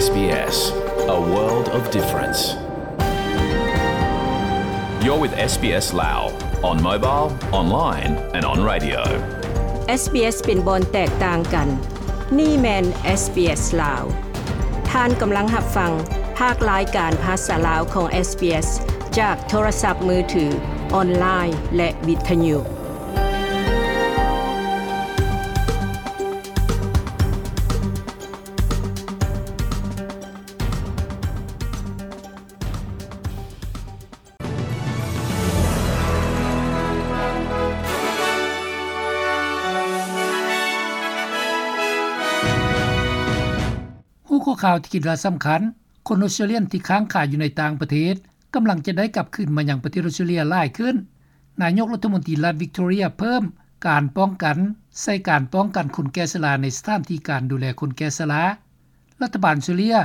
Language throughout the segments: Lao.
SBS, a world of difference. You're with SBS Lao on mobile, online and on radio. SBS ເປັນບ່ອນແຕກຕ່າງກັນ. ນີ້ແມ່ນ SBS ລາວ. ທ່ານກຳລັງຮັບຟັງພາກລາຍການພາສາລາວຂອງ SBS ຈາກໂທລະສັບມືຖື, ອອນລາຍ ແລະ ວິທະຍຸ. ຫົວຂໍ້ຂ່າວທີ່ຄິດວ່າສຳຄັນ, ຄົນອອສເຕຣເລຍນທີ່ຄ້າງຄາຢູ່ໃນຕ່າງປະເທດ ກຳລັງຈະໄດ້ກັບຄືນມາຍັງປະເທດອອສເຕຣເລຍຫຼາຍຂຶ້ນ. ນາຍົກລັດຖະມົນຕີລັດວິກຕໍເຣຍເພີ່ມການປ້ອງກັນໃສ່ການປ້ອງກັນຄົນແກ່ຊະລາໃນສະຖານທີ່ການດູແລຄົນແກ່ຊະລາ. ລັດຖະບານອອສເຕຣເລຍ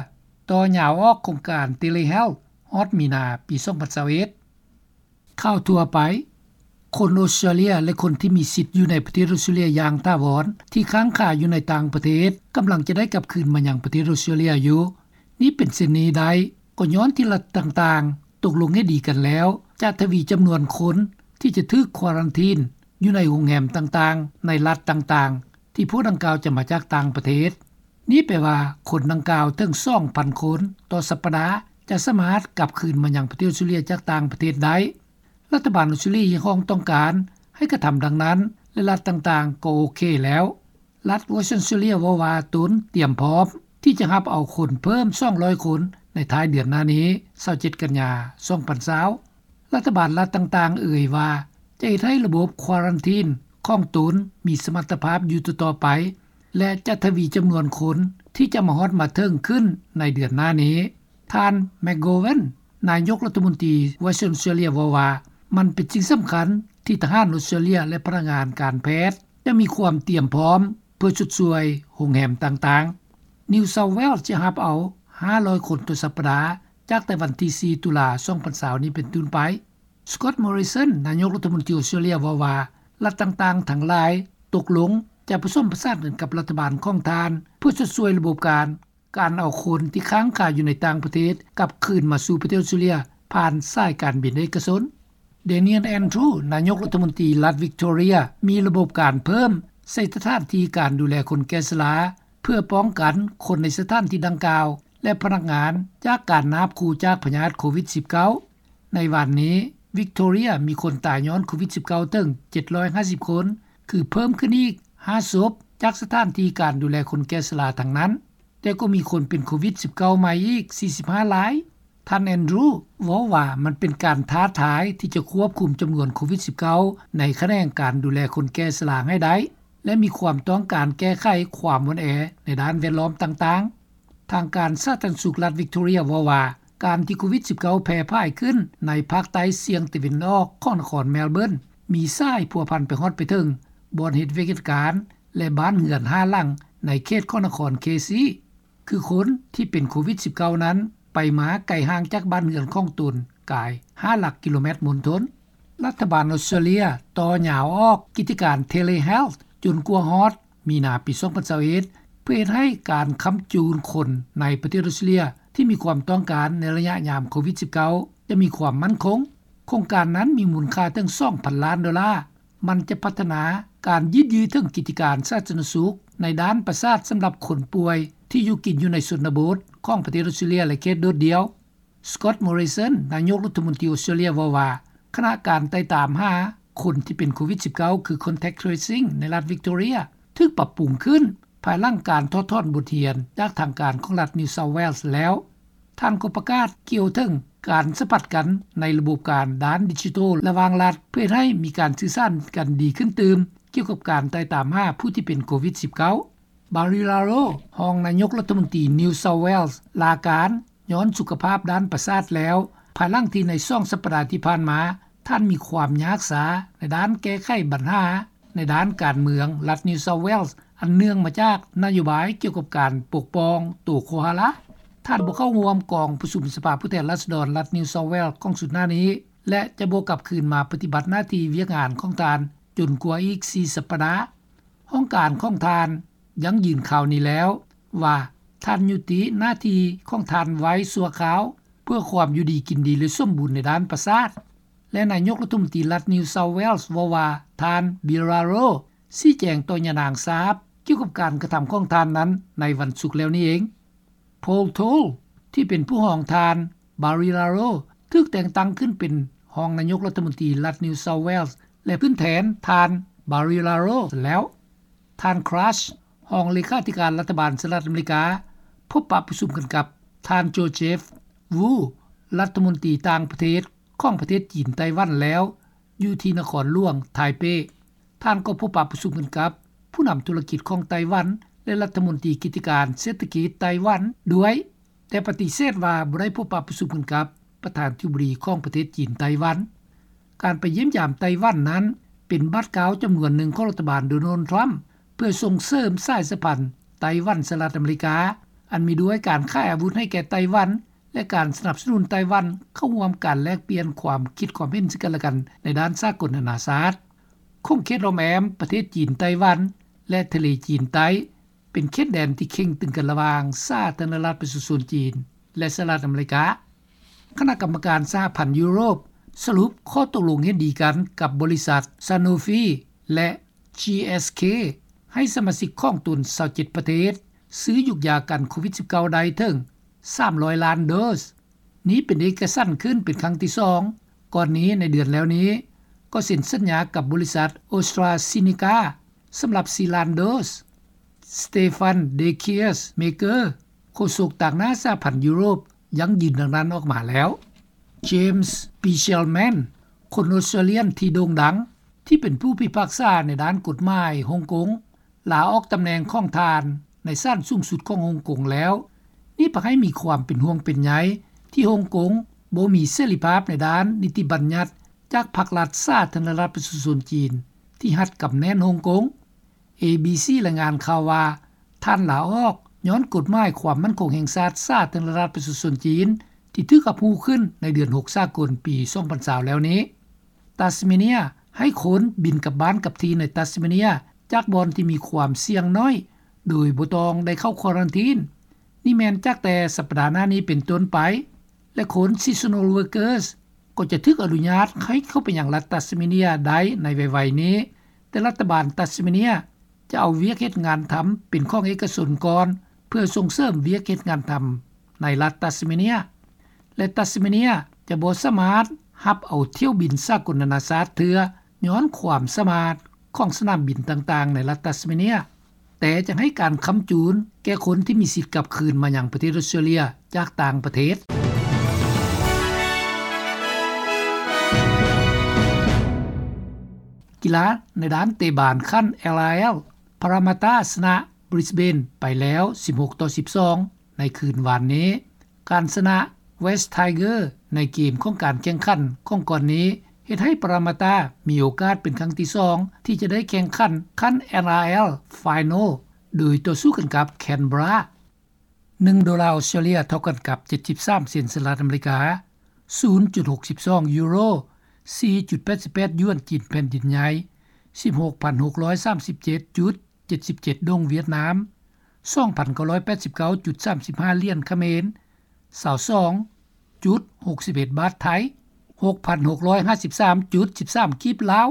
ຕໍ່ຍາວອອກໂຄງການ Telehealth ຮອດມີນາປີສອງພັນຊາວເອັດ. ຂ່າວທົ່ວໄປ. ຄົນອອສເຕຣເລຍ ແລະ ຄົນທີ່ມີສິດຢູ່ໃນປະເທດອອສເຕຣເລຍຢ່າງຖາວອນ ທີ່ຄ້າງຄາຢູ່ໃນຕ່າງປະເທດ ກຳລັງຈະໄດ້ກັບຄືນມາຍັງປະເທດອອສເຕຣເລຍຢູ່. ນີ້ເປັນເຊັ່ນນີ້ໄດ້ ກໍຍ້ອນທີ່ລັດຕ່າງໆຕົກລົງເຫັນດີກັນແລ້ວ ຈະທະວີຈຳນວນຄົນທີ່ຈະຖືກຄວາຣັນທີນຢູ່ໃນໂຮງແຮມຕ່າງໆ ໃນລັດຕ່າງໆ ທີ່ພວກດັ່ງກ່າວຈະມາຈາກຕ່າງປະເທດ. ນີ້ແປວ່າຄົນດັ່ງກ່າວເຖິງສອງພັນຄົນຕໍ່ສັບປະດາ ຈະສາມາດກັບຄືນມາຍັງປະເທດອອສເຕຣເລຍຈາກຕ່າງປະເທດໄດ້. ລັດຖະບານອອສເຕຣເລຍຮຽກຮ້ອງຕ້ອງການໃຫ້ກະທຳດັ່ງນັ້ນ ແລະ ລັດຕ່າງໆກໍໂອເຄແລ້ວ. ລັດ Western Australia ເວົ້າວ່າຕົນຕຽມພ້ອມທີ່ຈະຮັບເອົາຄົນເພີ່ມສອງຮ້ອຍຄົນໃນທ້າຍເດືອນໜ້ານີ້, ຊາວເຈັດ ກັນຍາ ສອງພັນຊາວ. ລັດຖະບານລັດຕ່າງໆເອີ່ຍວ່າ ຈະເຮັດໃຫ້ລະບົບຄວາຣັນທີນຂອງຕົນມີສະມັດຕະພາບຢູ່ຕໍ່ໆໄປ ແລະ ຈະທະວີຈຳນວນຄົນທີ່ຈະມາຮອດມາເຖິງຂຶ້ນໃນເດືອນໜ້ານີ້. ທ່ານ McGowan ນາຍົກລັດຖະມົນຕີ Western Australia ເວົ້າວ່າ ມັນເປັນສິ່ງສຳຄັນທີ່ທະຫານອອສເຕຣເລຍ ແລະ ພະນັກງານການແພດຈະມີຄວາມຕຽມພ້ອມເພື່ອຊົດຊ່ວຍໂຮງແຮມຕ່າງໆ. New South Wales ຈະຮັບເອົາຫ້າຮ້ອຍຄົນຕໍ່ສັບປະດາ ຈາກແຕ່ວັນທີສີ່ ຕຸລາ ສອງພັນຊາວນີ້ເປັນຕົ້ນໄປ. Scott Morrison ນາຍົກລັດຖະມົນຕີອອສເຕຣເລຍເວົ້າວ່າ ລັດຕ່າງໆທັງຫຼາຍຕົກລົງຈະປະສົມປະສານກັນກັບລັດຖະບານຂອງທ່ານ ເພື່ອຊົດຊ່ວຍລະບົບການ ການເອົາຄົນທີ່ຄ້າງຄາຢູ່ໃນຕ່າງປະເທດກັບຄືນມາສູ່ປະເທດອອສເຕຣເລຍ ຜ່ານສາຍການບິນເອກະຊົນ. Daniel Andrews ນາຍົກລັດຖະມົນຕີລັດວິກຕໍເຣຍ ມີລະບົບການເພີ່ມໃສ່ສະຖານທີ່ການດູແລຄົນແກ່ຊະລາ ເພື່ອປ້ອງກັນຄົນໃນສະຖານທີ່ດັ່ງກ່າວ ແລະ ພະນັກງານຈາກການນາບຂູ່ຈາກພະຍາດໂຄວິດສິບເກົ້າ. ໃນວານນີ້ ວິກຕໍເຣຍມີຄົນຕາຍຍ້ອນໂຄວິດສິບເກົ້າເຖິງເຈັດຮ້ອຍຫ້າສິບຄົນ, ຄືເພີ່ມຂຶ້ນອີກຫ້າສົບຈາກສະຖານທີ່ການດູແລຄົນແກ່ຊະລາທັງນັ້ນ, ແຕ່ກໍມີຄົນເປັນໂຄວິດສິບເກົ້າໃໝ່ອີກສີ່ສິບຫ້າລາຍ. ທ່ານ Andrews ເວົ້າວ່າ ມັນເປັນການທ້າທາຍທີ່ຈະຄວບຄຸມຈຳນວນໂຄວິດສິບເກົ້າໃນຂະແໜງການດູແລຄົນແກ່ຊະລາໃຫ້ໄດ້ ແລະ ມີຄວາມຕ້ອງການແກ້ໄຂຄວາມອ່ອນແອໃນດ້ານແວດລ້ອມຕ່າງໆ. ທາງການສາທາລະນະສຸກລັດວິກຕໍເຣຍເວົ້າວ່າ ການທີ່ໂຄວິດສິບເກົ້າແຜ່ຜາຍຂຶ້ນໃນພາກໃຕ້ສ່ຽງຕາເວັນອອກຂອງນະຄອນແມລເບີນ ມີສາຍພົວພັນໄປຮອດໄປເຖິງບ່ອນເຮັດວຽກເຮັດການ ແລະ ບ້ານເຮືອນຫ້າຫຼັງໃນເຂດຂອງນະຄອນເຄຊີ ຄືຄົນທີ່ເປັນໂຄວິດສິບເກົ້ານັ້ນ ໄປມາໄກຫ່າງຈາກບ້ານເຮືອນຂອງຕົນກາຍຫ້າຫຼັກກິໂລແມັດມົນທົນ. ລັດຖະບານອອສເຕຣເລຍຕໍ່ຍາວອອກກິດຈະການ Telehealth ຈົນກວ່າຮອດມີນາປີສອງພັນຊາວເອັດ ເພື່ອເຮັດໃຫ້ການຄ້ຳຈູນຄົນໃນປະເທດອອສເຕຣເລຍທີ່ມີຄວາມຕ້ອງການໃນໄລຍະຍາມໂຄວິດສິບເກົ້າ ຈະມີຄວາມໝັ້ນຄົງ. ໂຄງການນັ້ນມີມູນຄ່າເຖິງສອງພັນລ້ານໂດລາ. ມັນຈະພັດທະນາການຍືດເຖິງກິດຈະການສາທາລະນະສຸກໃນດ້ານປະສາດສຳລັບຄົນປ່ວຍທີ່ຢູ່ກິນຢູ່ໃນຊົນນະບົດຂອງປະເທດອອສເຕຣເລຍ ແລະ ເຂດໂດດດ່ຽວ. Scott Morrison ນາຍົກລັດຖະມົນຕີອອສເຕຣເລຍເວົ້າວ່າ ຄະນະການໄຕ່ຕາມຫາຄົນທີ່ເປັນໂຄວິດສິບເກົ້າ ຄື Contact Tracing ໃນລັດວິກຕໍເຣຍ ຖືກປັບປຸງຂຶ້ນ ພາຍຫຼັງການຖອດຖອນບົດຮຽນຈາກທາງການຂອງລັດ New South Wales ແລ້ວ. ທ່ານກໍປະກາດກ່ຽວເຖິງການສຳຜັດກັນໃນລະບົບການດ້ານດິຈິໂຕລະຫວ່າງລັດ ເພື່ອເຮັດໃຫ້ມີການສື່ສານກັນດີຂຶ້ນຕື່ມ ກ່ຽວກັບການໄຕ່ຕາມຫາຜູ້ທີ່ເປັນໂຄວິດສິບເກົ້າ. Barry Raro ຮອງນາຍົກລັດຖະມົນຕີ New South Wales ລາການຍ້ອນສຸຂະພາບດ້ານປະສາດແລ້ວ ພາຍຫຼັງທີ່ໃນສອງສັບປະດາທີ່ຜ່ານມາ ທ່ານມີຄວາມຍາກຊາໃນດ້ານແກ້ໄຂບັນຫາໃນດ້ານການເມືອງລັດ New South Wales ອັນເນື່ອງມາຈາກນະໂຍບາຍກ່ຽວກັບການປົກປ້ອງໂຕໂຄຮາລາ. ທ່ານບໍ່ເຂົ້າຮ່ວມກອງປະຊຸມສະພາຜູ້ແທນລາຊະດອນລັດ New South Wales ຂອງຊຸດໜ້ານີ້ ແລະ ຈະບໍ່ກັບຄືນມາປະຕິບັດໜ້າທີ່ວຽກງານຂອງທ່ານຈົນກວ່າອີກສີ່ສັບປະດາ. ຫ້ອງການຂອງທ່ານຢັ້ງຢືນຂ່າວນີ້ແລ້ວວ່າ ທ່ານຍຸຕິໜ້າທີ່ຂອງທ່ານໄວ້ຊົ່ວຄາວ ເພື່ອຄວາມຢູ່ດີກິນດີ ແລະ ສົມບູນໃນດ້ານປະສາດ. ແລະ ນາຍົກລັດຖະມົນຕີລັດ New South Wales ເວົ້າວ່າ ທ່ານ Barilaro ຊີ້ແຈງຕໍ່ຍານາງຊາບ ກ່ຽວກັບການກະທຳຂອງທ່ານນັ້ນໃນວັນສຸກແລ້ວນີ້ເອງ. Paul Toll ທີ່ເປັນຜູ້ຮອງທ່ານ Barilaro ຖືກແຕ່ງຕັ້ງຂຶ້ນເປັນຮອງນາຍົກລັດຖະມົນຕີລັດ New South Wales ແລະ ຂຶ້ນແທນທ່ານ Barilaro ແລ້ວ. ທ່ານ Crouch ຮອງເລຂາທິການລັດຖະບານສະຫະລັດອາເມລິກາ ພົບປະປະຊຸມກັນກັບທ່ານ Joseph Wu ລັດຖະມົນຕີຕ່າງປະເທດຂອງປະເທດຈີນໄຕ້ຫວັນແລ້ວ ຢູ່ທີ່ນະຄອນຫຼວງໄທເປ. ທ່ານກໍພົບປະປະຊຸມກັນກັບຜູ້ນຳທຸລະກິດຂອງໄຕ້ຫວັນ ແລະ ລັດຖະມົນຕີກິດຈະການເສດຖະກິດໄຕ້ຫວັນດ້ວຍ, ແຕ່ປະຕິເສດວ່າບໍ່ໄດ້ພົບປະປະຊຸມກັນກັບປະທານາທິບໍດີຂອງປະເທດຈີນໄຕ້ຫວັນ. ການໄປຢ້ຽມຢາມໄຕ້ຫວັນນັ້ນ ເປັນບາດກ້າວຈຳນວນໜຶ່ງຂອງລັດຖະບານໂດນັລ ທຣຳ ເພື່ອສົ່ງເສີມສາຍສຳພັນໄຕ້ຫວັນ-ສະຫະລັດອາເມລິກາ ອັນມີດ້ວຍການຂາຍອາວຸດໃຫ້ແກ່ໄຕ້ຫວັນ ແລະ ການສະໜັບສະໜູນໄຕ້ຫວັນເຂົ້າຮ່ວມການແລກປ່ຽນຄວາມຄິດຄວາມເຫັນເຊິ່ງກັນແລະກັນໃນດ້ານສາກົນນານາຊາດ. ຂົງເຂດລ້ອມແອ້ມປະເທດຈີນໄຕ້ຫວັນ ແລະ ທະເລຈີນໃຕ້ ເປັນເຂດແດນທີ່ເຄັ່ງຕຶງກັນລະຫວ່າງສາທາລະນະລັດປະຊາຊົນຈີນ ແລະ ສະຫະລັດອາເມລິກາ. ຄະນະກຳມະການສະຫະພັນຢູໂຣບສະຫຼຸບຂໍ້ຕົກລົງເຫັນດີກັນກັບບໍລິສັດ Sanofi ແລະ GSK ໃຫ້ສະມາຊິກຂອງຕົນຊາວເຈັດປະເທດ ຊື້ຢູກຢາກັນໂຄວິດ-19 ໄດ້ເຖິງສາມຮ້ອຍລ້ານໂດສ. ນີ້ເປັນເອກະສັນຂຶ້ນເປັນຄັ້ງທີສອງ. ກ່ອນນີ້ໃນເດືອນແລ້ວນີ້ ກໍເຊັນສັນຍາກັບບໍລິສັດ AstraZeneca ສຳລັບສີ່ລ້ານໂດສ. Stefan de Klerk-Meeker ໂຄສົກຕາງໜ້າສະຫະພັນຢູໂຣບ ຢັ້ງຢືນດັ່ງນັ້ນອອກມາແລ້ວ. James Bichelman ຄົນອອສເຕຣເລຍນທີ່ໂດ່ງດັງ ທີ່ເປັນຜູ້ພິພາກສາໃນດ້ານກົດໝາຍຮົງກົງ ລາອອກຕຳແໜ່ງຂອງທ່ານໃນສານສູງສຸດຂອງຮົງກົງແລ້ວ. ນີ້ພາໃຫ້ມີຄວາມເປັນຫ່ວງເປັນໃຍທີ່ຮົງກົງບໍ່ມີເສລີພາບໃນດ້ານນິຕິບັນຍັດຈາກພັກລັດສາທາລະນະລັດປະຊາຊົນຈີນ ທີ່ຮັດກຳແໜ້ນຮົງກົງ. ເອບີຊີ ລາຍງານຂ່າວວ່າ ທ່ານລາອອກຍ້ອນກົດໝາຍຄວາມໝັ້ນຄົງແຫ່ງຊາດສາທາລະນະລັດປະຊາຊົນຈີນ ທີ່ຖືກຮັບຮູ້ຂຶ້ນໃນເດືອນຫົກສາກົນປີສອງພັນຊາວແລ້ວນີ້. ຕັດສະເມເນຍ ໃຫ້ຄົນບິນກັບບ້ານກັບທີ່ໃນຕັດສະເມເນຍ ຈາກບ່ອນທີ່ມີຄວາມສ່ຽງໜ້ອຍ ໂດຍບໍ່ຕ້ອງໄດ້ເຂົ້າຄວາຣັນທີນ. ນີ້ແມ່ນຈາກແຕ່ສັບປະດາໜ້ານີ້ເປັນຕົ້ນໄປ ແລະ ຄົນ seasonal workers ກໍຈະຖືກອະນຸຍາດໃຫ້ເຂົ້າໄປຍັງລັດຕັດສະເມເນຍໄດ້ໃນໄວໆນີ້, ແຕ່ລັດຖະບານຕັດສະເມເນຍຈະເອົາວຽກເຮັດງານທຳເປັນຂອງເອກະຊົນກ່ອນ ເພື່ອສົ່ງເສີມວຽກເຮັດງານທຳໃນລັດຕັດສະເມເນຍ ແລະ ຕັດສະເມເນຍຈະບໍ່ສາມາດຮັບເອົາຖ້ຽວບິນສາກົນນານາຊາດເທື່ອ ຍ້ອນຄວາມສາມາດຂອງສະໜາມບິນຕ່າງໆໃນລັດຕັດສະເມເນຍ. ແຕ່ຈະໃຫ້ການຄ້ຳຈູນແກ່ຄົນທີ່ມີສິດກັບຄືນມາຍັງປະເທດອອສເຕຣເລຍຈາກຕ່າງປະເທດ. ກິລາໃນດ້ານເຕະບານຂັ້ນ LRL ພາຣາມາຕາຊະນະ Brisbane ໄປແລ້ວ ສິບຫົກຕໍ່ສິບສອງ ໃນຄືນວານນີ້. ການຊະນະ West Tigers ໃນເກມຂອງການແຂ່ງຂັນຂອງກ່ອນນີ້ ເຮັດໃຫ້ປາຣາມາຕາມີໂອກາດເປັນຄັ້ງທີສອງ ທີ່ຈະໄດ້ແຂ່ງຂັນຂັ້ນ NRL Final ໂດຍຕໍ່ສູ້ກັນກັບ Canberra. ໜຶ່ງໂດລາອອສເຕຣເລຍເທົ່າກັນກັບ ເຈັດສິບສາມເຊັນສະຫະລັດອາເມລິກາ, ສູນຈຸດຫົກສິບສອງຢູໂຣ, ສີ່ຈຸດແປດສິບແປດຢວນຈີນແຜ່ນດິນໃຫຍ່, ສິບຫົກພັນຫົກຮ້ອຍສາມສິບເຈັດຈຸດ ເຈັດສິບເຈັດດົງຫວຽດນາມ, ສອງພັນເກົ້າຮ້ອຍແປດສິບເກົ້າຈຸດສາມສິບຫ້າຫຼຽນຂະເໝນ, ຊາວສອງຈຸດຫົກສິບເອັດບາດໄທ, ຫົກພັນຫົກຮ້ອຍຫ້າສິບສາມຈຸດສິບສາມກີບລາວ,